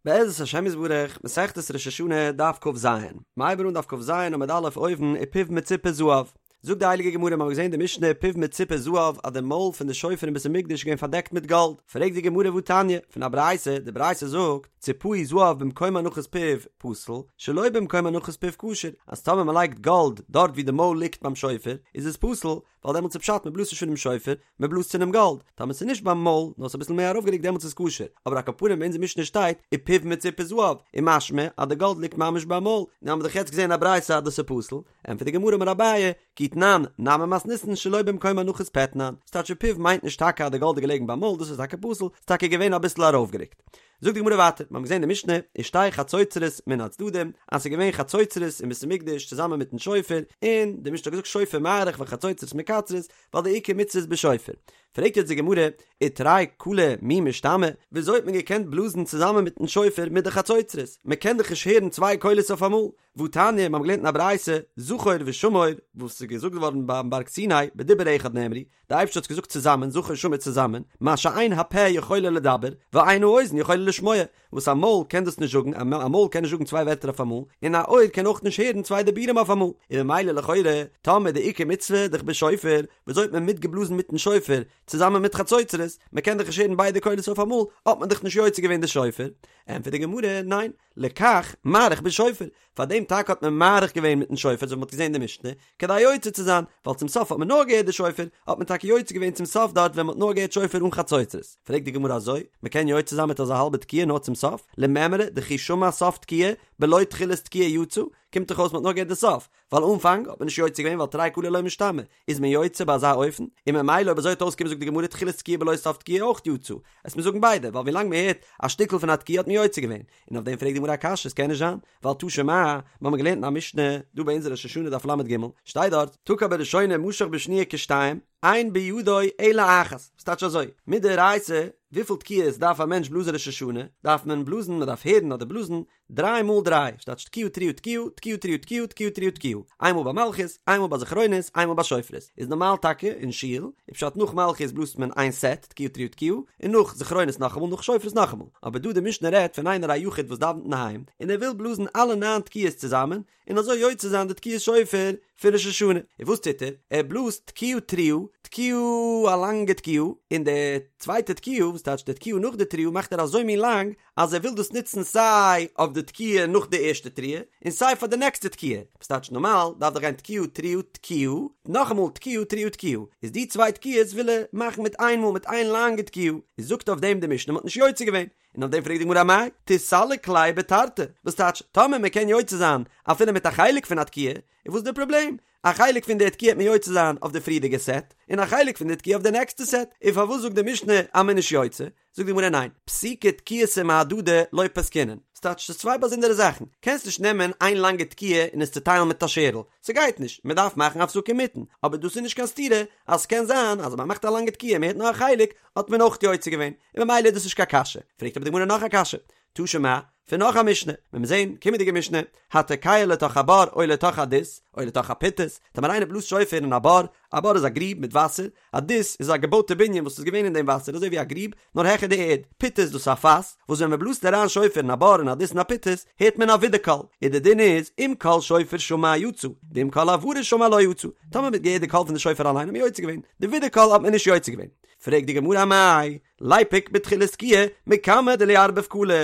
בעזרת השם יתברך, מסכת ראש השנה, דף כ"ז. מ'הייבן אן דף כ"ז עמוד א' אויבן, ופיו מצופה זהב. זאגט די הייליגע גמרא, מ'האט געזען די משנה פיו מצופה זהב אז די מויל פון די שופר אין בית המקדש איז געווען פארדעקט מיט גאלד. פרעגט די גמרא והתניא, פון א ברייתא, די ברייתא זאגט, ציפהו זהב במקום הנחת פיו פסול, שלא במקום הנחת פיו כשר, אז טאמער מ'לייגט גאלד דארט ווי די מויל ליגט ביים שופר, איז עס פסול, ווייל דעמאלטס איז פשט מען בלאזט נישט פונעם שופר, מען בלאזט פונעם גאלד, טאמער ס'איז נישט ביים מויל, נאר ס'איז אביסל מער ארויפגערוקט דעמאלטס איז כשר, אבער על כל פנים אין אונזער משנה שטייט ופיו מצופה זהב, איז משמע אז די גאלד ליגט ממש ביים מויל, נו האמיר דאך יעצט געזען א ברייתא אז דאס איז פסול, ענטפערט די גמרא אמר אביי, כי תנן נמי מתניתין שלא במקום הנחת פה תנן, ס'טייטש ופיו מיינט נישט טאקע אז די גאלד איז געלעגן ביים מויל, דאס איז טאקע פסול, ס'איז טאקע געווען אביסל ארויפגערוקט. זאגט די גמרא ווייטער, מיר האבן געזען די משנה, ושתי חצוצרות מן הצדדים, אז ס'איז געווען חצוצרות אין בית המקדש צוזאמען מיטן שופר, און די משנה האט געזאגט שופר מאריך וחצוצרות מקצרות, ווייל די עיקר מצוה איז בשופר. פרעגט יעצט די גמרא, ותרי קלי מי משתמעי, וויאזוי האט מען געקענט בלאזן צוזאמען מיטן שופר מיט די חצוצרות? מען קען דאך נישט הערן צוויי קולות אויפאמאל. והתניא, מיר האבן געלערנט אין א ברייתא, זכור ושמור, וואס איז געזאגט געווארן ביים בארג סיני, בדיבור אחד נאמרו, די אייבערשטער האט עס געזאגט צוזאמען, זכור שמור צוזאמען, מה שאין הפה יכולה לדבר, ואין האוזן יכולה לשמוע, וואס א מויל קען דאס נישט זאגן, א מויל קען נישט זאגן צוויי ווערטער אויף אמאל, און א אויער קען אויך נישט הערן צוויי דיבורים אויף אמאל, און ממילא לכאורה, טאמער די עיקר מצוה דאך בשופר, וויאזוי האט מען מיטגעבלאזן מיטן שופר, צוזאמען מיט חצוצרות, מען קען דאך נישט הערן ביידע קולות אויף אמאל, האט מען דאך נישט יוצא געווען די שופר? ענטפערט די גמרא, ניין, לכך מאריך בשופר, פאר דעם טאקע האט מען מאריך געווען מיטן שופר אזוי ווי מ'האט געזען אין די משנה, כדי יוצא צו זיין, ווייל צום סוף האט מען נאר געהערט די שופר, האט מען טאקע יוצא געווען צום סוף דארט ווען מ'האט נאר געהערט שופר אן חצוצרות. פרעגט די גמרא אזוי, מ'קען יוצא זיין מיט אזא האלבע תקיעה נאר צום סוף? למימרא דכי שמע סוף תקיעה בלא תחילת תקיעה יצא, קומט דאך אויס מ'האט נאר געהערט די סוף, ווייל אנפאנג האט מען נישט יוצא געווען ווייל תרי קלי לא משתמעי, איז מען יוצא ביי אזא אופן? און ממילא אויב אזוי וועט אויסקומען זאגט די גמרא תחילת תקיעה בלא סוף תקיעה אויך יצא, וועסט מיר זאגן ביידע, ווייל ווילאנג מען הערט א שטיקל פון א תקיעה האט מען יוצא געווען, און אויף דעם פרעגט די גמרא א קשיא, עס קען נישט זיין, ווייל תא שמע, מיר האבן געלערנט אין א משנה, דא ביי אונזער ראש השנה דף לג, שטייט דארט, תקע בראשונה משך בשניה כשתיים, אין בידו אלא אחת, וואס טייטש אזוי, מדאורייתא, וויפיל תקיעות דארף א מענטש בלאזן ראש השנה, דארף מען בלאזן, מען דארף הערן אדער בלאזן, דריי מאל דריי, ס'טייטש תקיעה תרועה תקיעה, תקיעה תרועה תקיעה, תקיעה תרועה תקיעה, איין מאל ביי מלכיות, איין מאל ביי זכרונות, איין מאל ביי שופרות, איז נארמאל טאקע אין שול, איז פשט נאך מלכיות בלאזט מען איין סעט, תקיעה תרועה תקיעה, און נאך זכרונות נאכאמאל, נאך שופרות נאכאמאל, אבער דא די משנה רעדט פון איינער א יחיד וואס דאווענט אינדערהיים, און ער וויל בלאזן אלע ניין תקיעות צוזאמען, און אזוי יוצא זיין די תקיעת שופר פון ראש השנה, און וואס טוט ער? ער בלאזט תקיעה תרועה, תקיעה א לאנגע תקיעה, און די צווייטע תקיעה, וואס טייטש די תקיעה נאך די תרועה מאכט ער אזוי מין לאנג, אז ער וויל דאס נוצן סיי אויף די תקיעה נאך די ערשטע תרועה, און סיי פאר די נעקסטע תקיעה, וואס טייטש נארמאל דארף דאך גיין תקיעה תרועה תקיעה, נאכאמאל תקיעה תרועה תקיעה, איז די צוויי תקיעות וויל ער מאכן מיט איין מאל מיט איין לאנגע תקיעה, איז זאגט אויף דעם די משנה מ'האט נישט יוצא געווען, און אויף דעם פרעגט די גמרא אמאי תיסלק ליה בתרתי, וואס טייטש טאמער מען קען יוצא זיין אפילו מיט א חלק פון א תקיעה, איז וואס איז די פראבלעם? א חלק פון די תקיעה וועט מען יוצא זיין אויף די פריערדיגע סעט, און א חלק פון די תקיעה אויף די נעקסטע סעט, און פארוואס זאגט די משנה אז מען איז נישט יוצא? זאגט די גמרא ניין, פסוקי תקיעתא מהדדי לא פסקינן, ס'טייטש ס'איז צוויי באזונדערע זאכן, קענסט נישט נעמען איין לאנגע תקיעה און עס צוטיילן מיט א שערל, ס'גייט נישט, מ'דארף מאכן הפסקה אינמיטן, אבער דאס איז נישט קיין סתירה אז ס'קען זיין אז מ'מאכט א לאנגע תקיעה און מ'הערט נאר א חלק האט מען אויך יוצא געווען, און ממילא איז דאס נישט קיין קשיא. פרעגט אבער די גמרא נאך א קשיא, תא שמע, פון נאך א משנה, ווען מיר זעהן קומענדיגע משנה, התוקע לתוך הבור או לתוך הדות, או לתוך הפיטס, טאמער איינער בלאזט שופר אין א בור, א בור איז א גריב מיט וואסער, א דות איז א געבויטע בנין וואס איז געווען אין דעם וואסער אזוי ווי א גריב, נאר העכער די ערד, פיטס דאס איז א פאס, וואס ווען מען בלאזט אריין שופר אין א בור אין א דות אין א פיטס, הערט מען א ווידערקול, און די דין איז, אם קול שופר שמע יצא, ואם קול הברה שמע לא יצא, טאמער מען האט געהערט די קול פון די שופר אליין האט מען יוצא געווען, די ווידערקול האט מען נישט יוצא געווען. פרעגט די גמרא אמאי, ליפוק בתחילת תקיעה, מקמי דלא ערביב קלא,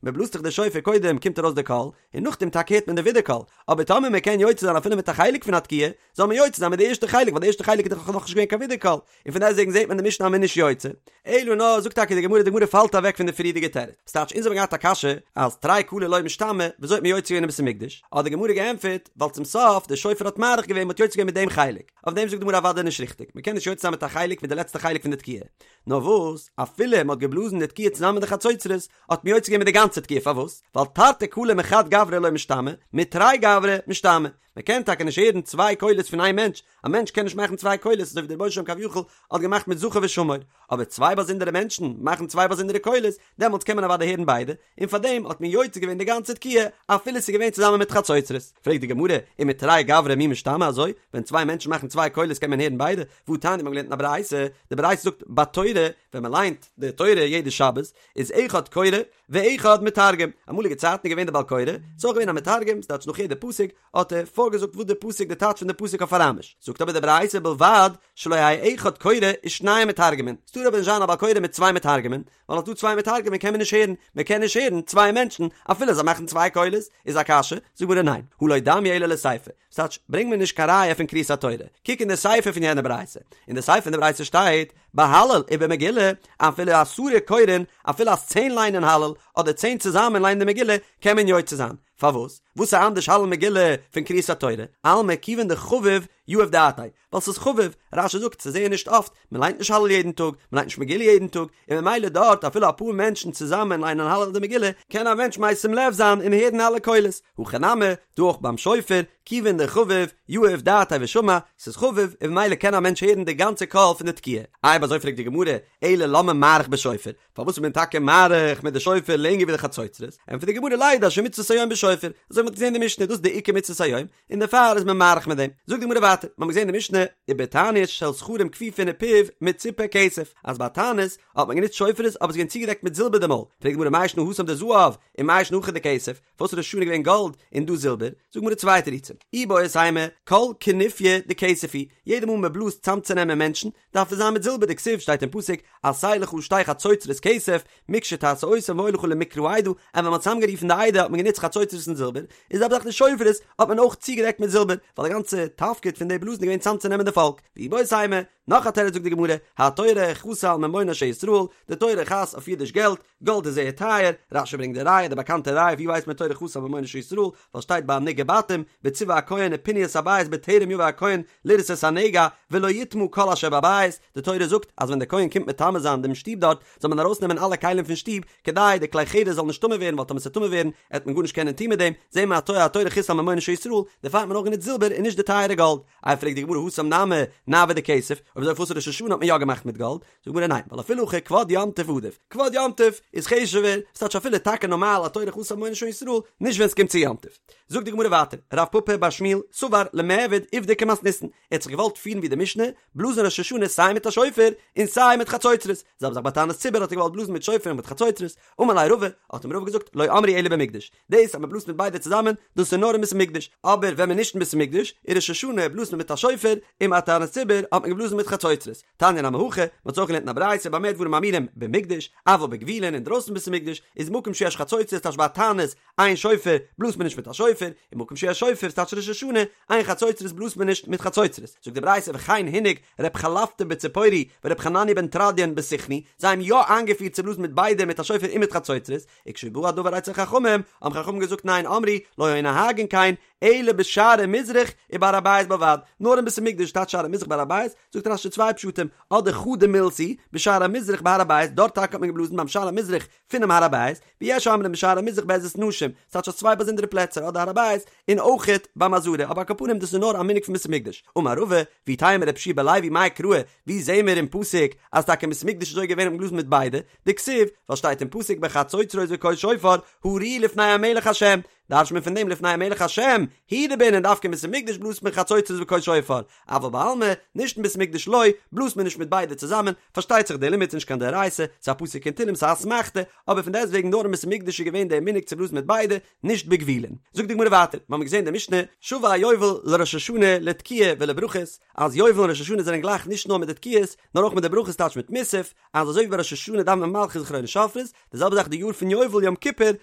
מען בלאזט דאך די שופר קודם קומט ארויס די קול, און נאכדעם טאקע הערט מען די ווידערקול, אבער טאמער מען קען יוצא זיין אפילו מיט א חלק פון א תקיעה, זאל מען יוצא זיין מיט די ערשטע חלק ווייל די ערשטע חלק איז דאך נאכנישט געווען קיין ווידערקול, און פון דעסטוועגן זעט מען די משנה אז מען איז נישט יוצא. אלא נאר זאגט טאקע די גמרא, די גמרא פאלט אוועק פון די פריערדיגע תירוץ, ס'טייטש אונז האבן געהאט א קשיא אז תרי קלי לא משתמעי, וויאזוי האט מען יוצא געווען אין בית המקדש, האט די גמרא געענטפערט, ווייל צום סוף די שופר האט מאריך געווען מען האט יוצא געווען מיט דעם חלק, אויף דעם זאגט די גמרא אוודאי נישט ריכטיג, מען קען נישט יוצא זיין מיט א חלק מיט די לעצטע חלק פון די תקיעה, נאר וואס אפילו מען האט געבלאזן די תקיעה צוזאמען מיט די חצוצרות, האט מען יוצא געווען מיט די גאנצע תקיעה, פארוואס? ווייל תרתי קלי מחד גברא לא משתמעי, מתרי גברי משתמעי. מען קען טאקע נישט הערן צוויי קולות פון איין מענטש, א מענטש קען נישט מאכן צוויי קולות אזוי ווי דער רבונו של עולם כביכול האט געמאכט מיט זכור ושמור, אבער צוויי באזונדערע מענטשן מאכן צוויי באזונדערע קולות, דעמאלטס קען מען אוודאי הערן ביידע, און פארדעם האט מען יוצא געווען די גאנצע תקיעה אפילו ס'איז געווען צוזאמען מיט חצוצרות. פרעגט די גמרא, ומתרי גברי מי משתמעי אזוי? ווען צוויי מענטשן מאכן צוויי קולות קען מען הערן ביידע? והתניא מ'האט געלערנט אין א ברייתא, די ברייתא זאגט בתורה, ווען מ'ליינט די תורה יעדע שבת, איז אחד קורא ואחד מתרגם, אמאליגע צייטן איז געווען די בעל קורא, ס'איז אויך געווען א מתרגם, ס'טייטש נאך יעדע פסוק האט ער פארגעזאגט וואס די פסוק די טייטש פון די פסוק אויף אראמיש, זאגט אבער די ברייתא ובלבד שלא יהא אחד קורא ושניים מתרגמין, ס'טאר אבער נישט זיין א בעל קורא מיט צוויי מתרגמים, ווייל אז ס'דא צוויי מתרגמים קען מען נישט הערן, מען קען נישט הערן צוויי מענטשן אפילו זיי מאכן צוויי קולות, איז א קשיא? זאגט די גמרא ניין, הא לא דמיא אלא לסיפא, ס'טייטש ברענג מיר נישט קיין ראיה פון קריאת התורה, קוק אין די סיפא פון יענע ברייתא, אין די סיפא פון די ברייתא שטייט, בהלל ובמגילה, אפילו עשרה קורין, אפילו אז צען ליינען הלל, אדער צען צוזאמען ליינען די מגילה, קען מען יוצא זיין. פארוואס? וואס איז אנדערש הלל מגילה פון קריאת התורה? אלמא כיוון דחביב יהיב דעתיה, ווייל ס'איז חביב, רש"י זאגט ס'איז זייער נישט אפט, מ'ליינט נישט הלל יעדן טאג, מ'ליינט נישט מגילה יעדן טאג, און ממילא דארט אפילו אפאר מענטשן צוזאמען ליינען הלל אדער מגילה, קען א מענטש משים לב זיין און הערן אלע קולות, הכא נמי, דא אויך ביים שופר, כיוון דחביב, יהיב דעתיה ושמע, ס'איז חביב, און ממילא קען א מענטש הערן די גאנצע קול פון די תקיעה. אויב אזוי פרעגט די גמרא, אלא למה מעריך בשופר, פארוואס איז מען טאקע מאריך מיט די שופר לענגער ווי די חצוצרות? ענטפערט די גמרא לידע שמצות היום בשופר, אזוי ווי מ'האט געזען אין די משנה, דאס איז די עיקר מצות היום, און דערפאר איז מען מאריך מיט דעם. זאגט די גמרא ווייטער, מ'האט געזען אין די משנה, ובתענית של זכרים כפופין ופיו מצופה כסף, אז ביי תענית האט מען גענוצט שופרות אבער עס איז געווען צוגעדעקט מיט זילבער די מויל, פרעגט די גמרא מאי שנא התם דזהב ומאי שנא הכא דכסף, פארוואס איז ראש השנה געווען גאלד און דא זילבער? זאגט די גמרא צוויי תירוצים, איבעית אימא, כל כינופיא דכסף הוא, יעדע מאל מען בלאזט צאמצונעמען מענטשן, דארף עס זיין מיט זילבער דכתיב שטייט אין פסוק עשה לך שתי חצוצרות כסף מקשה תעשה אותם והיה לך למקרא עדה, און ווען מען האט צוזאמגערופן די עדה האט מען גענוצט חצוצרות און זילבער, איז אבער דאך די שופרות האט מען אויך צוגעדעקט מיט זילבער, ווייל די גאנצע תפקיד פון די בלאזן איז געווען צאמצונעמען די פאלק, ואיבעית אימא, נאך א תירוץ זאגט די גמרא, התורה חסה על ממונן של ישראל, די תורה חס אויף אידיש געלט, גאלד איז זייער טייער, רש"י ברענגט די ראיה, די באקאנטע ראיה ווי ווייסט מען תורה חסה על ממונן של ישראל, ווייל שטייט ביי נגעי בתים, וציוה הכהן ופנו את הבית בטרם יבא הכהן לראות את הנגע, ולא יטמא כל אשר בבית, די תורה זאגט אז ווען דער כהן קומט מטמא זיין דעם שטוב דארט, זאל מען ארויסנעמען אלע כלים פון שטוב, כדי די כלי חרס זאל נישט טמא ווערן, ווייל טאמער ס'וועט טמא ווערן, עט מען גארנישט קענען טון מיט דעם, זעהן מיר התורה התורה חסה על ממונן של ישראל, דערפאר האט מען אויך גענוצט זילבער און נישט די טייערע גאלד. איי פרעגט די גמרא התם נמי נעוה דכסף, אויב אזוי פארוואס ראש השנה האט מען יא געמאכט מיט גאלד? זאגט די גמרא ניין, ווייל אפילו הכי כבוד יום טוב עדיף, כבוד יום טוב איז חשוב'ער, ס'טייטש אפילו טאקע נארמאל התורה חסה על ממונן של ישראל, נישט ווען ס'קומט צו יום טוב. זאגט די גמרא ווייטער, רב פפא בר שמואל סבר למיעבד עובדא כמתניתין, ער האט זיך געוואלט פירן ווי די משנה, בלאזן ראש השנה סיי מיט א שופר און סיי מיט חצוצרות, זעלבע זאך ביי תענית ציבור האט ער געוואלט בלאזן מיט שופר און מיט חצוצרות, אמר ליה רבא, האט אים רבא געזאגט, לא אמרו אלא במקדש, דאס אז מען בלאזט מיט ביידע צוזאמען, דאס איז נאר אין בית המקדש, אבער ווען מען איז נישט אין בית המקדש, איז ראש השנה בלאזט מען מיט א שופר, און ביי תענית ציבור האט מען געבלאזן מיט חצוצרות. תניא נמי הכי, מען האט אויך געלערנט אין א ברייתא במה דברים אמורים במקדש, אבל בגבולין אינדרויסן בית המקדש, איז מקום שיש חצוצרות טייטש ביי תענית, אין שופר, בלאזט מען נישט מיט א שופר, און מקום שיש שופר טייטש ראש השנה, אין חצוצרות בלאזט מען נישט מיט חצוצרות. זאגט די ברייתא וכן הנהיג ר' חלפתא בציפורי ור' חנניה בן תרדיון בסיכני, זיי האבן יא איינגעפירט צו בלאזן מיט ביידע מיט א שופר און מיט חצוצרות, וכשבא הדבר אצל חכמים, האבן חכמים געזאגט ניין אמרו, לא היו נוהגין כן, אלא בשערי מזרח ובהר הבית בלבד, נאר אין בית המקדש טייטש שערי מזרח בהר הבית, זאגט רש"י צוויי פשטים, אדער חדא מילתא היא, בשער המזרח בהר הבית, דארט טאקע האט מען געבלאזן ביים שער המזרח פונעם הר הבית, ויש אומרים בשער המזרח בעזרת נשים, ס'טייטש אז צוויי באזונדערע פלעצער אדער הר הבית און אויכעט ביים עזרה, אבער על כל פנים דאס איז נאר א מנהג פון בית המקדש. אמר רבא, ואיתימא רבי יהושע בן לוי מאי קרא, ווי זעהן מיר אין פסוק אז טאקע אין בית המקדש איז אזוי געווען האט מען געבלאזן מיט ביידע, דכתיב, ווייל שטייט אין פסוק בחצוצרות וקול שופר, הריעו לפני המלך השם, דרש'ט מען פון דעם לפני המלך השם, הוא דבעינן דווקא אין בית המקדש בלאזט מען חצוצרות וקול שופר, אבל בעלמא, נישט אין בית המקדש לא, בלאזט מען נישט מיט ביידע צוזאמען, פארשטייט זיך דער לימוד איז נישט קיין דאורייתא, ס'איז א פסוק אין תהלים ס'איז א אסמכתא, אבער פון דעסטוועגן נאר אין בית המקדש איז געווען דער מנהג צו בלאזן מיט ביידע, נישט בגבולין. זאגט די גמרא ווייטער, מ'האמיר געזען די משנה, שווה היובל לראש השנה לתקיעה ולברכות, אז יובל און ראש השנה זענען גלייך נישט נאר מיט די תקיעות, נאר אויך מיט די ברכות טייטש מיט מוסף, אז אזוי ווי ביי ראש השנה דאווענט מען מלכיות זכרונות שופרות, די זעלבע זאך די יאר פון יובל יום כיפור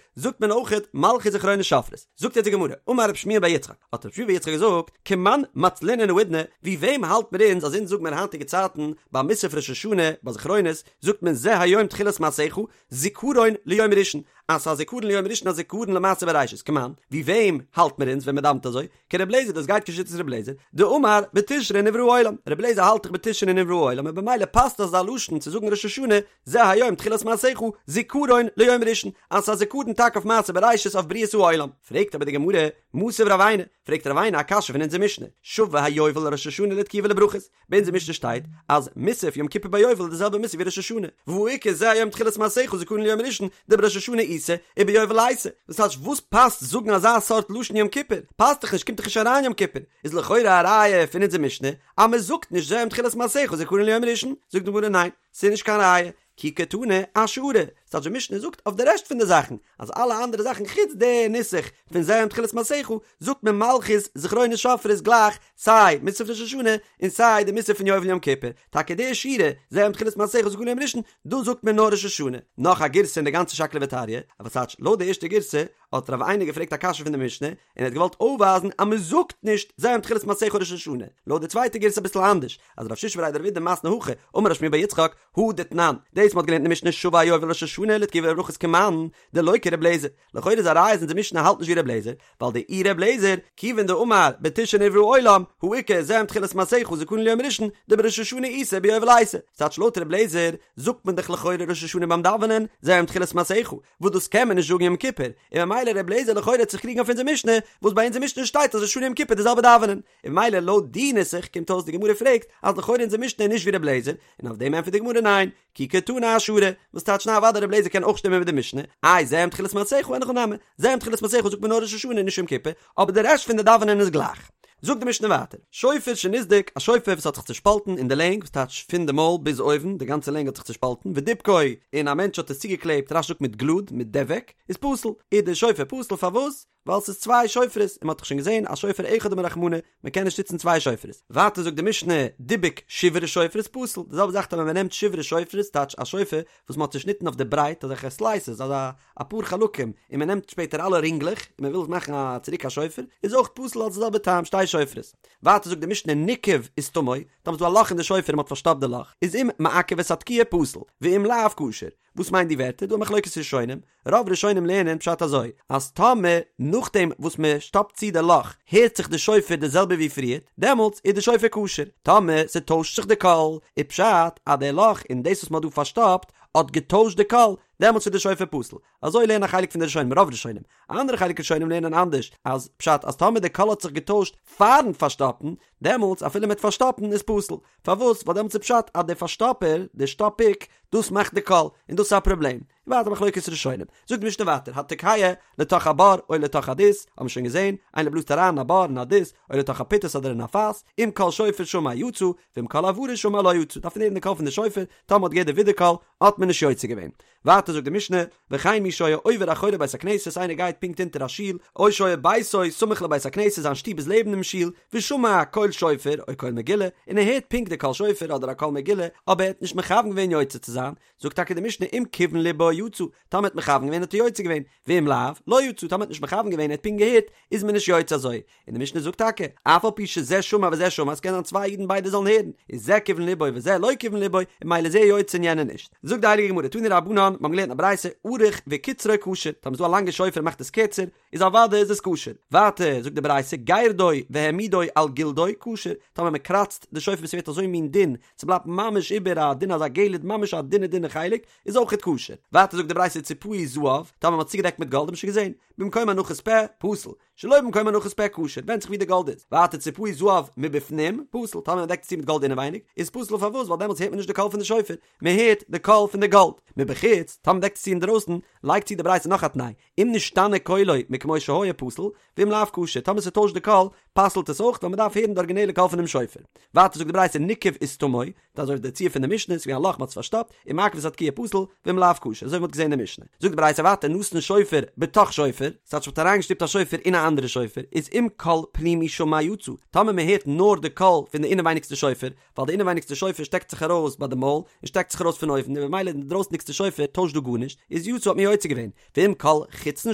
זאגט מען אויכעט מלכיות זכרונות שופרות. זאגט יעצט די גמרא, אמר רב שמואל בר יצחק, האט רב שמואל בר יצחק געזאגט, כמאן מצלינן האידנא, ווי וועם האלט מיר אונז אז אונז זאג מיר היינטיגע צייטן ביי מוסף ראש השנה ביי זכרונות זאגט מען זה היום תחילת מעשיך זכרון ליום ראשון, אז ס'איז א זיכרון ליום ראשון א זיכרון למעשה בראשית, כמאן, ווי וועם האלט מיר אונז ווען מ'דאווענט אזוי? כר' לעזער דאס גייט כשיטת ר' לעזער, דאמר בתשרי נברא העולם, ר' לעזער האלט דאך בתשרי נברא העולם און במילא פאסט אזא לשון צו זאגן ראש השנה זה היום תחילת מעשיך זיכרון ליום ראשון, אז ס'איז א זיכרון טאקע אויף מעשה בראשית אויף בריאת העולם. פרעגט אבער די גמרא, מתיב רב עינא, פרעגט רב עינא א קשיא פון אונזער משנה, שווה היובל ראש השנה לתקיעה ולברכות, ביי אונזער משנה שטייט אז מוסף יום כיפור ביי יובל איז די זעלבע מוסף ווי ראש השנה, והא איכא זה היום תחילת מעשיך זכרון ליום ראשון דבראש השנה איתא וביובל ליתא, וואס טייטש וואס פאסט זאגן אזא סארט לשון יום כיפור? פאסט דאך נישט קומט דאך נישט אריין יום כיפור, איז לכאורה א ראיה פון אונזער משנה אז מען זאגט נישט זה היום תחילת מעשיך זכרון ליום ראשון, זאגט די גמרא ניין ס'איז נישט קיין ראיה, כי קתני אשארא, ס'טייטש די משנה זאגט אויף די רעשט פון די זאכן, אז אלע אנדערע זאכן חוץ די נוסח פון זה היום תחילת מעשיך, זאגט מען מלכיות זכרונות שופרות גלייך סיי מוסף ראש השנה און סיי די מוסף פון יובל יום כיפור, טאקע די שורה זה היום תחילת מעשיך זכרון ליום ראשון, דאס זאגט מען נאר ראש השנה. נאך א גירסא אין די גאנצע שקלא וטריא, אבער ס'טייטש לויט די ערשטע גירסא האט רב עינא געפרעגט א קשיא פון די משנה, און ער האט געוואלט אויפווייזן אז מען זאגט נישט זה היום תחילת מעשיך ראש השנה, לויט די צווייטע גירסא אביסל אנדערש, אז רב שישא בריה דרב אידי מתני הכי, אמר רב שמואל בר יצחק, הא דתנן, דאס מ'האט געלערנט אין די משנה שווה היובל ראש השנה לתקיעה ולברכות כמאן, דלא כר' לעזער, לכאורה איז א ראיה אז אונזער משנה האלט נישט ווי ר' לעזער, ווייל דאי ר' לעזער, כיוון דאמר בתשרי נברא העולם, הא איכא זה היום תחילת מעשיך זכרון ליום ראשון, דבראש השנה איתא וביובל ליתא, ס'טייטש לויט ר' לעזער זאגט מען דאך לכאורה ראש השנה ביים דאווענען, זה היום תחילת מעשיך, וואס דאס קען מען נישט זאגן יום כיפור, און ממילא ר' לעזער לכאורה וועט זיך קריגן אויף אונזער משנה, וואס ביי אונזער משנה שטייט אז ראש השנה יום כיפור די זעלבע דאווענען, און ממילא לויט די נוסח קומט אויס די גמרא פרעגט אז לכאורה אונזער משנה איז נישט ווי ר' לעזער, און אויף דעם ענטפערט די גמרא ניין, כי קתני אשארא, וואס טייטש ניין אוודאי ר' לעזער קען אויך שטימען מיט די משנה, איי זה היום תחילת מעשיך אין הכי נמי, זה היום תחילת מעשיך זאגט מען נאר ראש השנה און נישט יום כיפור, אבער די רעשט פון די דאווענען איז גלייך. זאגט די משנה ווייטער, שופר שנסדק, א שופר וואס האט זיך צושפאלטן אין די לענג, וואס טייטש פון די מויל ביז אויבן, די גאנצע לענג האט זיך צושפאלטן, ודיבקו, און א מענטש האט עס צוגעקלעבט, רש"י זאגט מיט גלוד, מיט דבק, איז פסול, איז די שופר פסול, פארוואס? ווייל ס'איז צוויי שופרות, און מ'האט דאך שוין געזען אז שופר אחד אמר רחמנא, מ'קען נישט נוצן צוויי שופרות. ווייטער זאגט די משנה, דיבק שברי שופרות פסול, די זעלבע זאך טאמער מ'נעמט שברי שופרות, טייטש א שופר וואס מ'האט צושניטן אויף די ברייט, אזעלכע סלייסעס, אזא אפאר חלקים, און מ'נעמט שפעטער אלע רינגלעך, און מ'וויל מאכן א צוריק א שופר, איז אויך פסול אלס די זעלבע טעם, שתי שופרות. ווייטער זאגט די משנה ניקב וסתמו, טאמער ס'איז דא א לאך אין די שופר און מ'האט פארשטאפט די לאך, איז אם מעכב את התקיעה פסול, ואם לאו כשר. וואס מיינט די ווערטער? דא א מחלוקת ראשונים, רוב ראשונים לערנען פשט אזוי, אז טאמער נאכדעם וואס מען שטאפט צו די לאך הערט זיך די שופר די זעלבע ווי פריערט, דעמאלטס איז די שופר כשר, טאמער ס'טוישט זיך די קול, איז פשט אז די לאך און דאס וואס מען האט דא פארשטאפט האט געטוישט די קול, דעמאלטס איז די שופר פסול. אזוי לערנען א חלק פון די ראשונים, רוב ראשונים. א אנדערע חלק ראשונים לערנען אנדערש, אז פשט אז טאמער די קול האט זיך געטוישט פארן פארשטאפן, דעמאלטס אפילו מיט פארשטאפן איז פסול. פארוואס? ווייל דעמאלטס איז פשט אז דער פארשטאפער, דער שטאפיק, דאס מאכט די קול, און דאס איז א פראבלעם. און ווייטער מחלוקת ראשונים. זאגט די משנה ווייטער, התוקע לתוך הבור או לתוך הדות, האבן מיר שוין געזען, איינער בלאזט אריין אין א בור אין א דות, או לתוך הפיטס אדער אין א פאס, אם קול שופר שמע יצא, ואם קול הברה שמע לא יצא, דארף מען הערן די קול פון די שופר, טאמער מ'האט געהערט די ווידערקול, האט מען נישט יוצא געווען. ווייטער זאגט די משנה, וכן מי שהיה עובר אחורי בית הכנסת, איינער גייט פונקט אונטער א שול, או שהיה ביתו סמוך לבית הכנסת, זיין שטוב איז לעבן דעם שול, ושמע קול שופר או קול מגילה, און ער הערט פונקט די קול שופר אדער א קול מגילה, אבער ער האט נישט מכוון געווען יוצא צו זיין, זאגט טאקע די משנה אם כיוון לבו יצא, טאמער ער האט מכוון געווען האט ער יוצא געווען, ואם לאו, לא יצא, טאמער ער האט נישט מכוון געווען ער האט פונקט געהערט, איז מען נישט יוצא אזוי. און די משנה זאגט טאקע, אף על פי שזה שמע וזה שמע, עס קען זיין צוויי אידן ביידע זאלן הערן, איז זה כיוון לבו וזה לא כיוון לבו, און ממילא איז ער יוצא און יענער נישט. זאגט די הייליגע גמרא, תנו רבנן, מיר האבן געלערנט א ברייתא, ארוך וקיצרו כשר, טאמער איז דא א לאנגע שופר און מאכט עס קערצער, איז אוודאי איז עס כשר. ווייטער זאגט די ברייתא, גירדו והעמידו על גלדו, כשר, טאמער מען קראצט די שופר ביז ס'ווערט אזוי מין דין, ס'בלייבט ממש איבער א דין אזא גלד ממש א דינע דינע חלק, איז אויכעט כשר. ווייטער זאגט די ברייתא ציפהו זהב, טאמער מ'האט צוגעדעקט מיט גאלד האט מען שוין געזען, במקום הנחת פה, פסול. שלא במקום הנחת פה כשר, ווענדט זיך ווי די גאלד איז. ווייטער ציפהו זהב מבפנים, פסול, טאמער מען דעקט עס צו מיט גאלד אינעווייניג, איז פסול פארוואס? ווייל דעמאלטס הערט מען נישט די קול פון די שופר, מען הערט די קול פון די גאלד. מבחוץ, טאמער מען דעקט עס צו אינדרויסן, לייגט צו די ברייתא נאך א תנאי, אם נשתנה קולו מכמו שהיה פסול, ואם לאו כשר, טאמער ס'טוישט די קול, פסל'ט עס אויך, ווייל מען דארף הערן די ארגינעלע קול פונעם שופר. ווייטער זאגט די ברייתא ניקב וסתמו, דאס אזוי ווי די ציור פון די משנה, ס'איז געווען א לאך מ'האט עס פארשטאפט, אם מעכב את התקיעה פסול, ואם לאו כשר, אזוי ווי מ'האט געזען אין די משנה. זאגט די ברייתא ווייטער נתן שופר בתוך שופר, ס'טייטש מ'האט אריינגעשטופט א שופר אין א א אנדערע שופר, איז אם קול פנימי שמע יצא, טאמער מען הערט נאר די קול פון די אינעווייניגסטע שופר, ווייל די אינעווייניגסטע שופר שטעקט זיך ארויס ביי די מויל, און שטעקט זיך ארויס פון אויבן, און במילא די דרויסנדיגסטע שופר טוישט דא גארנישט, איז יצא האט מען יוצא געווען, ואם קול חיצון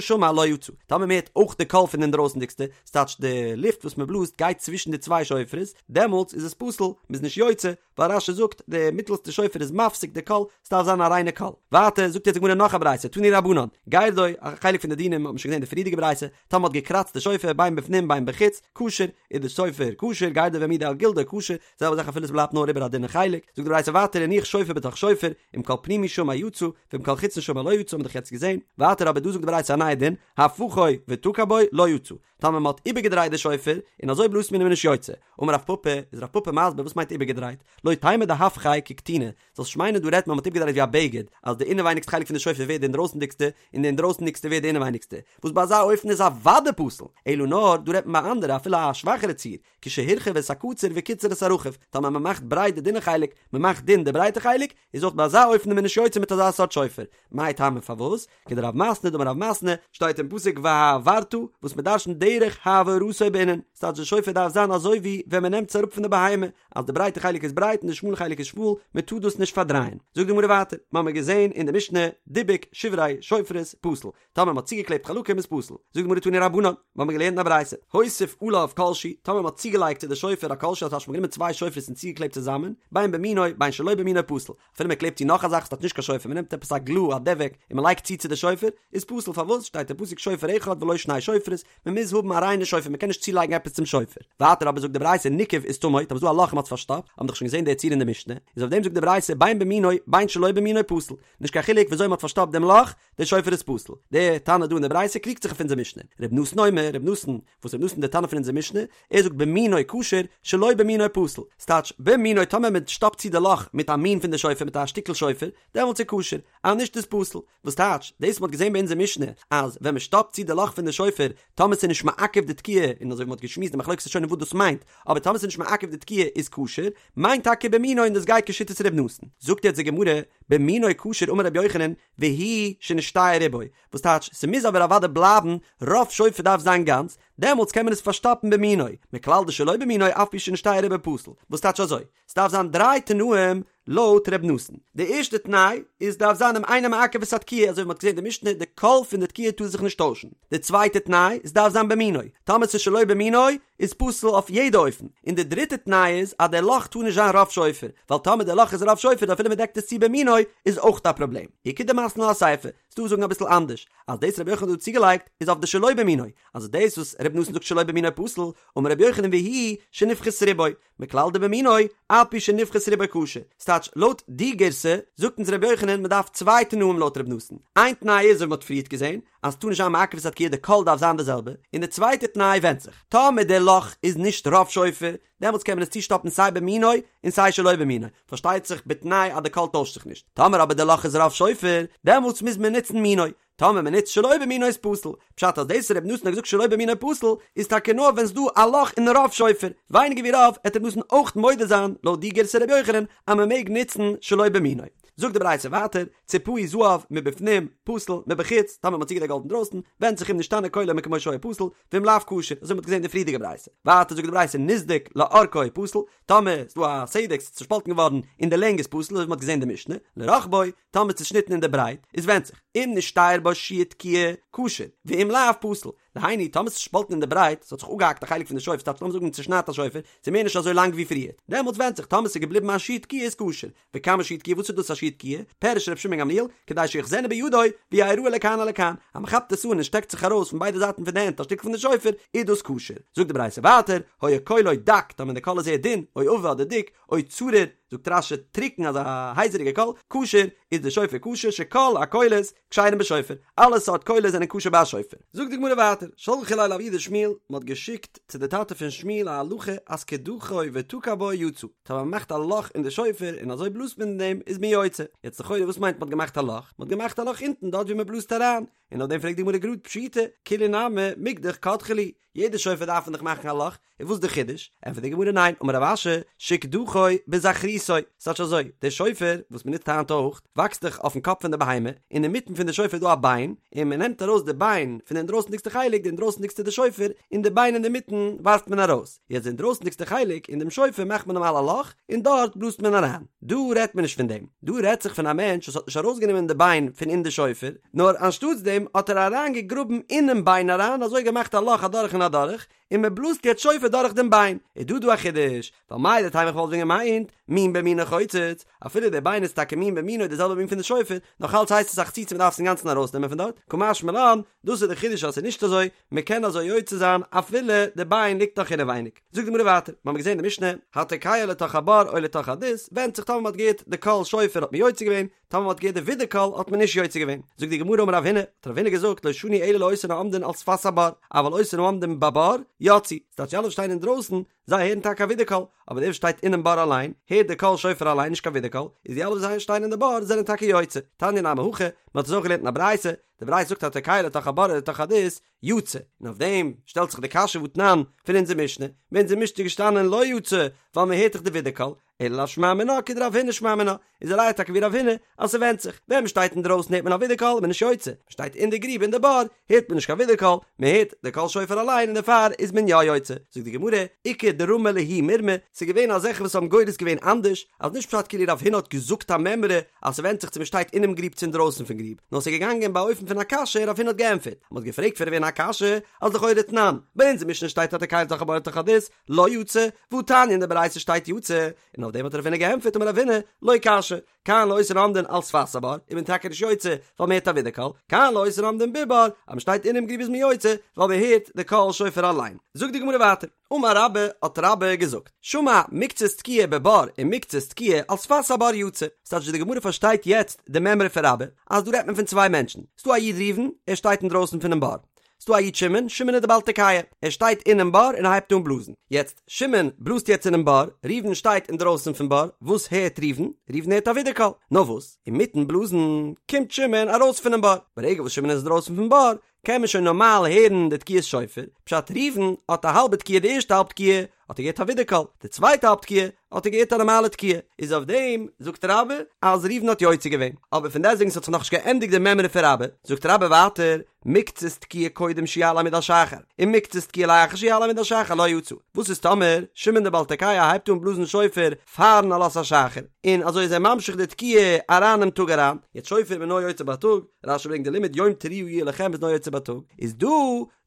שמע לא יצא, טאמער מען הערט אויך די קול פון די אינדרויסנדיגסטע, ס'טייטש די לופט וואס מען בלאזט גייט צווישן די צוויי שופרות, דעמאלטס איז עס פסול, מען איז נישט יוצא, ווייל רש"י זאגט די מיטלסטע שופר איז מפסיק די קול, ס'דארף זיין א ריינע קול. ווייטער זאגט יעצט די גמרא נאך א ברייתא, תנו רבנן, גירדו, א חלק פון די דינים האט מען שוין געזען די פריערדיגע ברייתא, טאמער מ'האט געקראצט די שופר בין בפנים בין בחוץ, כשר, איז די שופר כשר, גירדו והעמידו על גלדו כשר, זעלבע זאך אפילו ס'בלייבט נאר איבער א דינע חלק, זאגט די ברייתא ווייטער הניח שופר בתוך שופר, אם קול פנימי שמע יצא, ואם קול חיצון שמע לא יצא האט מען דאך יעצט געזען, ווייטער אבער דא זאגט די ברייתא א נייע דין, הפכו ותקע בו לא יצא, טאמער מען האט איבערגעדרייט די שופר, און אזוי בלאזט מען איז מען נישט יוצא. אמר רב פפא, איז רב פפא מסביר וואס מיינט איבערגעדרייט, לא תימא דהפכיה ככתונא, זאלסט נישט מיינען דא רעדט מען מ'האט איבערגעדרייט ווי א בגד, אז די אינעווייניגסטע חלק פון די שופר ווערט די אינדרויסנדיגסטע, און די אינדרויסנדיגסטע ווערט די אינעווייניגסטע, וואס ביי אזא אופן איז אוודאי פסול, אלא נאר דא רעדט מען ביי אנדערע אפילו א שוואכערע ציור, כשהרחיב את הקצר וקיצר את הרחב, טאמער מען מאכט ברייט די דינע חלק, מען מאכט דין די ברייטע חלק, איז אויך ביי אזא אופן איז מען נישט יוצא מיט אזא סארט שופר. מאי טעמא פארוואס? כדרב מתנה דאמר רב מתנה, שטייט אין פסוק והעברת, וואס מען דרש'נט דרך העברתו בעינן, ס'טייטש די שופר דארף זיין אזוי ווי ווען מען נעמט עס אראפ פון די בהמה, אז די ברייטע חלק איז ברייט און די שמאלע חלק איז שמאל, מען טאר דאס נישט פארדרייען. זאגט די גמרא ווייטער, מ'האמיר געזען אין די משנה, דיבק שברי שופרות פסול, טאמער מ'האט צוגעקלעבט חלקים איז פסול. זאגט די גמרא תנו רבנן, מ'האמיר געלערנט אין א ברייתא, הוסיף עליו כל שהוא, טאמער מ'האט צוגעלייגט צו די שופר א כל שהוא, אז מ'האט גענומען צוויי שופרות און צוגעקלעבט צוזאמען, בין במינו בין שלא במינו פסול, אפילו מען קלעבט צו נאך א זאך ס'טייטש נישט קיין שופר מען נעמט עפעס א גלו א דבק און מען לייגט צו צו די שופר איז פסול פארוואס שטייט אין פסוק שופר אחד ולא שני שופרות מען מוז האבן א ריינע שופר מען קען נישט צולייגן עפעס צום שופר ווייטער אבער זאגט די ברייתא ניקב וסתמו טאמער ס'איז דא א לאך און מ'האט עס פארשטאפט האבן דאך שוין געזען די ציור אין די משנה איז אויף דעם זאגט די ברייתא בין במינו בין שלא במינו פסול נישט קיין חילוק וויאזוי מען האט פארשטאפט דעם לאך דער שופר איז פסול. דער תנא דא אין די ברייתא קריגט זיך אויף אונזער משנה. ר' נתן אומר, ר' נתן, וואס ר' נתן דער תנא פון אונזער משנה, ער זאגט במינו כשר, שלא במינו פסול. ס'טייטש, במינו טאמער מען שטאפט צו די לאך מיט א מין פון די שופר מיט א שטיקל שופר, דעמאלטס איז כשר, אז נישט איז פסול. וואס טייטש, דאס מ'האט געזען ביי אונזער משנה, אז ווען מען שטאפט צו די לאך פון די שופר, טאמער ס'איז נישט מעכב די תקיעה, און אזוי ווי מ'האט געשמועסט די מחלוקת ראשונים וואס דאס מיינט, אבער טאמער ס'איז נישט מעכב די תקיעה איז כשר, מיינט טאקע במינו און דאס גייט כשיטת ר' נתן. זאגט יעצט די גמרא, במינו כשר אמר רבי יוחנן, והוא שנשתייר רובו, וואס טייטש ס'מוז אבער אוודאי בלייבן, רוב שופר דארף זיין גאנץ, דעמאלטס קען מען עס פארשטאפן במינו, מכלל דשלא במינו אף על פי שנשתייר רובו פסול, וואס טייטש אזוי, ס'דארף זיין דריי תנאים לויט ר' נתן, די ערשטע תנאי איז דארף זיין אם אינו מעכב את התקיעה, אזוי ווי מ'האט געזען די משנה, די קול פון די תקיעה טאר זיך נישט טוישן, די צווייטע תנאי, ס'דארף זיין במינו, טאמער ס'איז שלא במינו, איז פסול אויף יעדע אופן, און די דריטע תנאי איז אז דער לאך טאר נישט זיין רוב שופר, ווייל טאמער דער לאך איז רוב שופר אפילו מען דעקט עס צו במינו איז אויך א פראבלעם. איכא דמתני לה אסיפא, ס'דא וואס זאגן אביסל אנדערש, אז דאס רבי יוחנן האט דא צוגעלייגט איז אויף די שלא במינו, אז דאס וואס רבי נתן זאגט שלא במינו פסול, אמר רבי יוחנן והוא שנפחת רובו, מכלל דבמינו, אף על פי שנפחת רובו כשר. ס'טייטש, לויט די גירסא, זאגט אונז רבי יוחנן מ'דארף צוויי תנאים לויט רבי נתן. איין תנאי איז ווי מ'האט פריערט געזען, אז ס'טאר נישט זיין מעכב את התקיעה די קול דארף זיין די זעלבע, און די צווייטע תנאי ווענדט זיך, טאמער די לאך איז נישט רוב שופר, דעמאלטס קען מען עס צושטאפן סיי במינו און סיי שלא במינו, פארשטייט זיך בתנאי אז די קול טוישט זיך נישט, טאמער אבער די לאך איז רוב שופר, דעמאלטס מוז מען נוצן מינו, טאמער מען נוצט שלא במינו איז פסול, פשט אז דאס ר' נתן האט געזאגט שלא במינו פסול, איז טאקע נאר ווען ס'דא א לאך אין רוב שופר, ווייניגער ווי רוב, עט ר' נתן אויך מודה זיין לויט די גירסא ר' יוחנן אז מען מעג נוצן שלא במינו. זאגט די ברייתא ווייטער, ציפהו זהב מבפנים, פסול, מבחוץ, טאמער מ'האט צוגעדעקט גאלד אינדרויסן, ווענדט זיך אם נשתנה קולו מכמו שהיה פסול, ואם לאו כשר, אזוי מ'האט געזען אין די פריערדיגע ברייתא. ווייטער זאגט די ברייתא נסדק לאורכו פסול, טאמער ס'דא א סדק ס'איז צושפאלטן געווארן אין די לענג איז פסול, אזוי ווי מ'האט געזען אין די משנה, לרחבו, טאמער צושניטן אין די ברייט, איז ווענדט זיך, אם נשתייר בו שיעור תקיעה, כשר, ואם לאו פסול. דהיינו, טאמער ס'איז צושפאלטן אין די ברייט, ס'האט זיך אפגעהאקט א חלק פון די שופר, ס'טייטש לאמיר זאגן צושניידט א שופר, ס'איז מער נישט אזוי לאנג ווי פריער, דעמאלטס ווענדט זיך, טאמער ס'איז געבליבן א שיעור תקיעה איז כשר, וכמה שיעור תקיעה וואס איז דאס א שיעור תקיעה? פירש ר' שמעון גמליאל, כדי שיאחזנו בידו, ויראה לכאן ולכאן, אז מען כאפט עס אן און שטעקט זיך ארויס פון ביידע זייטן פון די הענט א שטיקל פון די שופר, איז דאס כשר. זאגט די ברייתא ווייטער, היה קולו דק, טאמער די קול איז זייער דין, או עבה אדער דיק, או צרור, זאגט רש"י טרוקן אזא הייזעריגע קול, כשר, איז די שופר כשר, שכל הקולות כשרים בשופר, אלע סארט קולות זענען כשר ביי א שופר. זאגט די גמרא ווייטער, שלחו ליה לאבוה דשמואל, מען האט געשיקט צו די טאטע פון שמואל א הלכה אז קדחו ותקע בו יצא, טאמער מען מאכט א לאך אין די שופר און אזוי בלאזט מען אין דעם איז מען יוצא, יעצט לכאורה וואס מיינט מען האט געמאכט א לאך? מען האט געמאכט א לאך אונטן דארט ווי מען בלאזט אריין, און אויף דעם פרעגט די גמרא גראד פשיטא, כולהו נמי מקדח קדחו להו, יעדע שופר דארף מען דאך מאכן א לאך, און וואס איז די חידוש? ענטפערט די גמרא ניין, אמר רב אשי, שקדחו בזכרותו. ברשותו, ס'טייטש אזוי, דער שופר, וואס מ'נוצט היינט אויך, וואקסט דאך אויפן קאפ פון די בהמה, און אינמיטן פון די שופר איז דא א ביין, און מ'נעמט ארויס די ביין פון די אינדרויסנדיגסטע חלק, די אינדרויסנדיגסטע די שופר, און די ביין אינדערמיטן ווארפט מען ארויס. יעצט די אינדרויסנדיגסטע חלק אין דעם שופר מאכט מען נארמאל א לאך, און דארט בלאזט מען אריין. דא רעדט מען נישט פון דעם. דא רעדט זיך פון א מענטש וואס האט נישט ארויסגענומען די ביין פון אין די שופר, נאר אנשטאטס דעם האט ער אריין געגראבן אינעם ביין אריין, אזוי געמאכט א לאך אדורך און אדורך, און מען בלאזט יעצט שופר דורך דעם ביין. איז דא דא א חידוש, ווייל מהו דתימא איך וואלט ווען געמיינט, מין במינו חוצץ, אפילו דער ביין איז טאקע מין במינו די זעלבע מין פון די שופר, נאך אלץ הייסט עס א חציצה מען דארף עס אינגאנצן ארויסנעמען פון דארט, קא משמע לן, דאס איז די חידוש אז ס'איז נישט אזוי, מען קען אזוי יוצא זיין אפילו די ביין ליגט נאך אינעווייניג. זאגט די גמרא ווייטער, מיר האבן געזען די משנה, התוקע לתוך הבור או לתוך הדות, ווענדט זיך טאמער מען האט געהערט די קול שופר האט מען יוצא געווען, טאמער מען האט געהערט די ווידערקול האט מען נישט יוצא געווען. זאגט די גמרא אמר רב הונא, האט רב הונא געזאגט לא שנו אלא לאותן העומדין על שפת הבור, אבל אותן העומדין בבור, יצאו, ס'טייטש די אלע וואס שטייען אינדרויסן, זיי הערן טאקע א ווידערקול, אבער דער וואס שטייט אינעם בור אליין, הערט די קול שופר אליין נישט קיין ווידערקול, איז די אלע וואס שטייען אין די בור זענען טאקע יוצא. תניא נמי הכי, מען האט עס אויך געלערנט אין א ברייתא, די ברייתא זאגט התוקע לתוך הבור או לתוך הדות, יצא, און אויף דעם שטעלט זיך די קשיא והתנן פון אונזער משנה, ביי אונזער משנה איז געשטאנען לא יצא, ווייל מען הערט דאך די ווידערקול, אלא לאו שמע מינה כדרב הונא שמע מינה, איז א ראיה טאקע ווי רב הונא אז ס'ווענדט זיך, ווען מ'שטייט אינדרויסן הערט מען א ווידערקול איז מען נישט יוצא, מ'שטייט אין די גריב אין די בור הערט מען נישט קיין ווידערקול, מ'הערט די קול שופר אליין און דערפאר איז מען יא יוצא, זאגט די גמרא, איכא דרמי להו מירמא, ס'איז געווען אזעלכע וואס האבן גורס געווען אנדערש, אז נישט פשט כאילו רב הונא האט געזאגט א מימרא אז ס'ווענדט זיך צו מ'שטייט אינעם גריב צו אינדרויסן פון גריב, נאר ס'איז געגאנגען באופן פון א קשיא און רב הונא האט געענטפערט, מ'האט געפרעגט פון רב הונא א קשיא, אז לכאורה תנן, ביי אונזער משנה שטייט התוקע לתוך הבור לתוך הדות, לא יצא, והתניא אין די ברייתא שטייט יצא, און אויף דעם האט רב הונא געענטפערט אמר רב הונא, לא קשיא, כאן לאותן העומדין על שפת הבור, איז מען טאקע נישט יוצא, ווייל מען הערט א ווידערקול, כאן לאותן העומדין בבור, אז מען שטייט אינעם גריב איז מען יוצא, ווייל מען הערט די קול שופר אליין. זאגט די גמרא ווייטער, אמר רבה, האט רבה געזאגט, שמע מקצת תקיעה בבור ומקצת תקיעה על שפת הבור יצא, ס'טייטש ווי די גמרא פארשטייט יעצט די מימרא פון רבה, אז דא רעדט מען פון צוויי מענטשן, ס'דא א איד ראובן, ער שטייט אינדרויסן פונעם בור, ס'דא א איד שמעון, שמעון איז די בעל תקיעה, ער שטייט אינעם בור און ער הייבט אן בלאזן. יעצט, שמעון בלאזט יעצט אינעם בור, ראובן שטייט אינדרויסן פון בור, וואס הערט ראובן? ראובן הערט א ווידערקול. נאר וואס, אינמיטן בלאזן, קומט שמעון ארויס פונעם בור. ברגע וואס שמעון איז אינדרויסן פון בור, קען מען שוין נארמאל הערן די תקיעת שופר, פשט ראובן האט א האלבע תקיעה די ערשטע האלב תקיעה האט ער געהערט א ווידערקול, די צווייטע האלב תקיעה האט ער געהערט א נארמאלע תקיעה, איז אויף דעם זאגט רבה אז ראובן האט יוצא געווען, אבער פון דעסטוועגן ס'האט זיך נאכנישט געענדיגט די מימרא פון רבה, זאגט רבה ווייטער, מקצת תקיעה קודם שיעלה עמוד השחר, און מקצת תקיעה לאחר שיעלה עמוד השחר לא יצא, וואס איז טאמער שמעון דער בעל תקיעה הייבט אן בלאזן שופר פארן עלות השחר, און אזוי איז ער ממשיך די תקיעה אריין אינעם טאג אריין, יעצט שופר איז מען נאר יוצא בייטאג, רש"י ברענגט די לימוד יום תרועה יהיה לכם איז נאר יוצא בייטאג, איז דא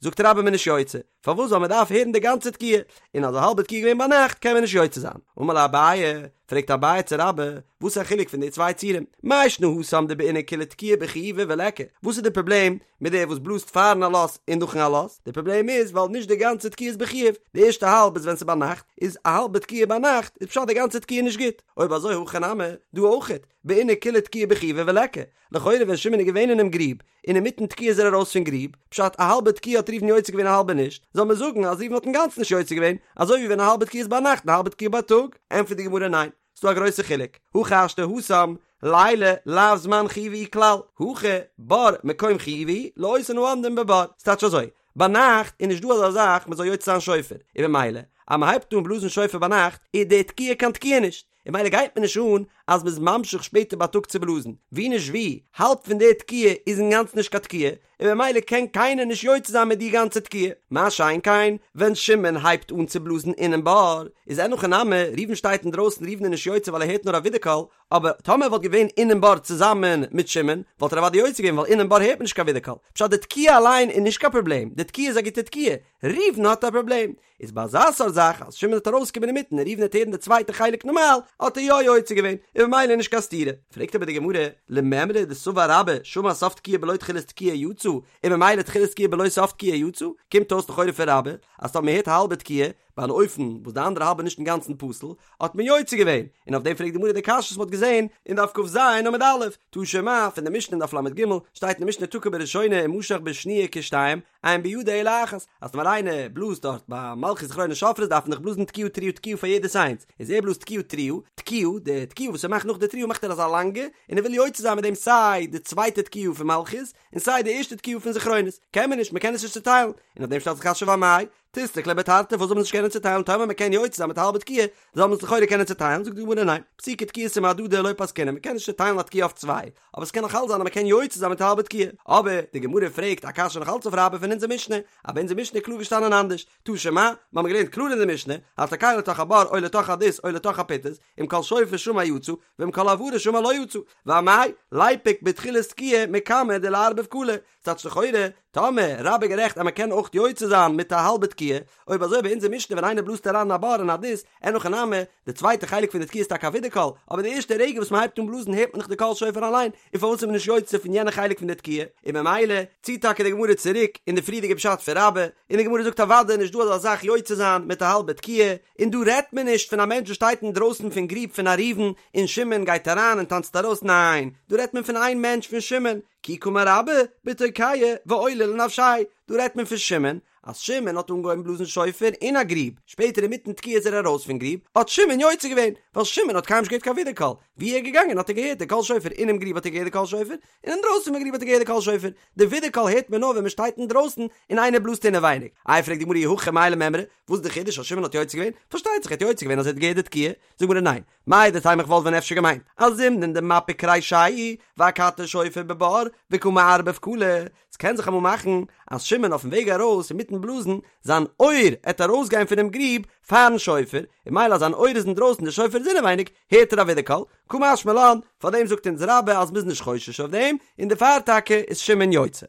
זאגט רבה מ'איז נישט יוצא, פארוואס ווייל מען דארף הערן די גאנצע תקיעה, און אז א האלבע תקיעה איז געווען ביינאכט קען מען נישט יוצא זיין. אמר ליה אביי, פרעגט אביי צו רבה, וואס איז א חילוק פון די צוויי ציורים? מאי שנא התם דבעינן כולה תקיעה בחיובא וליכא, וואס איז די פראבלעם מיט דער וואס בלאזט פארן עלות און נאכן עלות? די פראבלעם איז ווייל נישט די גאנצע תקיעה איז בחיוב, די ערשטע האלב איז ווען ס'איז ביינאכט, איז א האלבע תקיעה ביינאכט איז פשט די גאנצע תקיעה נישט גוט, אויב אזוי הכא נמי, דא אויכעט, בעינן כולה תקיעה בחיובא וליכא, לכאורה ווען שמעון איז געווען אינעם גריב, און אינמיטן תקיעה איז ער ארויס פון גריב, פשט א האלבע תקיעה האט ראובן יוצא געווען א האלבע נישט, זאל מען זאגן אז ראובן האט אינגאנצן נישט יוצא געווען, אזוי ווי ווען א האלבע תקיעה איז ביינאכט און א האלבע תקיעה בייטאג? ענטפערט די גמרא ניין, ס'דא א גרויסע חילוק, הכי השתא התם לילה לאו זמן חיובא הוא כלל, הכא בור מקום חיובא הוא לאותן העומדים בבור, ס'טייטש אזוי, ביינאכט איז נישט דא אזא זאך מ'זאל יוצא זיין שופר, און במילא אז מ'הייבט אן בלאזן שופר ביינאכט איז די תקיעה קיין תקיעה נישט, און במילא גייט מיר נישט אן אז מ'איז ממשיך שפעטער בייטאג צו בלאזן, ווי נישט ווי, האלב פון די תקיעה איז אינגאנצן נישט קיין תקיעה, און במילא קען קיינער נישט יוצא זיין מיט די גאנצע תקיעה. מה שאין כן, ווען שמעון הייבט אן צו בלאזן אינעם בור, איז אין הכי נמי, ראובן שטייט אינדרויסן ראובן איז נישט יוצא ווייל ער הערט נאר א ווידערקול, אבער טאמער ער וואלט געווען אינעם בור צוזאמען מיט שמעון, וואלט ער אוודאי יוצא געווען ווייל אינעם בור הערט מען נישט קיין ווידערקול. פשט די תקיעה אליין איז נישט קיין פראבלעם, די תקיעה איז א גוטע תקיעה, ראובן האט א פראבלעם, איז ביי אזא סארט זאך אז שמעון וועט ארויסקומען אינמיטן און ראובן וועט הערן די צווייטע חלק נארמאל, האט ער יא יוצא געווען, און במילא נישט קיין סתירה. פרעגט אבער די גמרא, למימרא דסבר רבה שמע סוף תקיעה בלא תחילת תקיעה יצא, און במילא תחילת תקיעה בלא סוף תקיעה יצא, קומט אויס לכאורה פון רבה, אז טאמער מ'הערט א האלבע תקיעה, ביי אן אופן וואס די אנדערע האלב איז נישט אינגאנצן פסול, האט מען יוצא געווען, און אויף דעם פרעגט די גמרא די קשיא וואס מ'האט געזען אין דף כ"ז עמוד א', תא שמע, פון די משנה אין דף ל"ג, שטייט אין די משנה תקע בראשונה ומשך בשניה כשתיים, אין בידו אלא אחת, אז טאמער איינער בלאזט דארט ביי מלכיות זכרונות שופרות דארף מען דאך בלאזן תקיעה תרועה תקיעה פאר יעדעס איינס, איז ער בלאזט תקיעה תרועה, תקיעה, די תקיעה וואס ער מאכט נאך די תרועה מאכט ער אזא לאנגע, און ער וויל יוצא זיין מיט דעם סיי די צווייטע תקיעה פון מלכיות, און סיי די ערשטע תקיעה פון זכרונות, קען מען נישט, מען קען עס נישט צוטיילן, און אויף דעם שטעלט זיך קשיא ואמאי, תיסלק ליה בתרתי, פארוואס זאל מען עס נישט קענען. קענען צוטיילן טאמער מען קען יוצא זיין מיט א האלבע תקיעה זאל מען עס לכאורה קענען צוטיילן, זאגט די גמרא ניין, פסוקי תקיעתא מהדדי לא פסקינן, מען קען נישט צוטיילן א תקיעה אויף צוויי, אבער עס קען נאך אלץ זיין אז מען קען יוצא זיין מיט א האלבע תקיעה, אבער די גמרא פרעגט א קשיא נאך אלץ אויף רבה פון אונזער משנה, אבער אונזער משנה איז קלאר געשטאנען אנדערש, תא שמע, מיר האבן געלערנט קלאר אין די משנה, התוקע לתוך הבור או לתוך הדות או לתוך הפיטס, אם קול שופר שמע יצא, ואם קול הברה שמע לא יצא, ואמאי, ליפוק בתחילת תקיעה מקמי דליערבב קלא, ס'טייטש לכאורה, טאמער רבה איז גערעכט אז מ'קען אויך יוצא זיין מיט א האלבע תקיעה, אויב אזוי ביי אונזער משנה ווען איינער בלאזט אריין אין א בור אין א דות, אין הכי נמי, די צווייטע חלק פון די תקיעה איז טאקע א ווידערקול, אבער די ערשטע רגע וואס מ'הייבט אן בלאזן הערט מען דאך די קול שופר אליין, און פארוואס איז מען נישט יוצא פון יענע חלק פון די תקיעה? און ממילא ציט טאקע די גמרא צוריק אין די פריערדיגע פשט פון רבה, און די גמרא זאגט אוודאי נישט דא אזא זאך יוצא זיין מיט א האלבע תקיעה, און דא רעדט מען נישט פון א מענטש וואס שטייט אינדרויסן פון גריב פון א ראובן און שמעון גייט אריין און טאנצט ארויס, ניין, דא רעדט מען פון איין מענטש פון שמעון, כי קאמר רבה בתוקע ועולה לנפשיה, דא רעדט מען פון שמעון, אז שמעון האט אנגעהויבן בלאזן שופר אין א גריב, שפעטער אינמיטן תקיעה איז ער ארויס פון גריב, האט שמעון יוצא געווען, ווייל שמעון האט קיינמאל נישט געהערט קיין ווידערקול, ווי ער איז געגאנגען האט ער געהערט די קול שופר, אינעם גריב האט ער געהערט די קול שופר, און אינדרויסן פון גריב האט ער געהערט די קול שופר, די ווידערקול הערט מען נאר ווען מען שטייט אינדרויסן און איינער בלאזט אינעווייניג. איי פרעגט די גמרא אי הכי מאי למימרא, וואס איז די חידוש אז שמעון האט יוצא געווען? פארשטייט זיך ער האט יוצא געווען אז ער האט געהערט די תקיעה, זאגט די גמרא ניין, מהו דתימא איך וואלט ווען אפשר געמיינט אז זימנין דמפיק רישיה ואכתי שופר בבור וקא מערבב קלא, ס'קען זיך אמאל מאכן אז שמעון אויפן וועג ארויס אינמיטן בלאזן זיין אויער עט ארויסגיין פונעם גריב פארן שופר, און ממילא אז זיין אויער איז אינדרויסן די שופר איז אינעווייניג הערט ער א ווידערקול, קא משמע לן, פארדעם זאגט אונז רבה אז מ'איז נישט חושש אויף דעם, און דערפאר טאקע איז שמעון יוצא.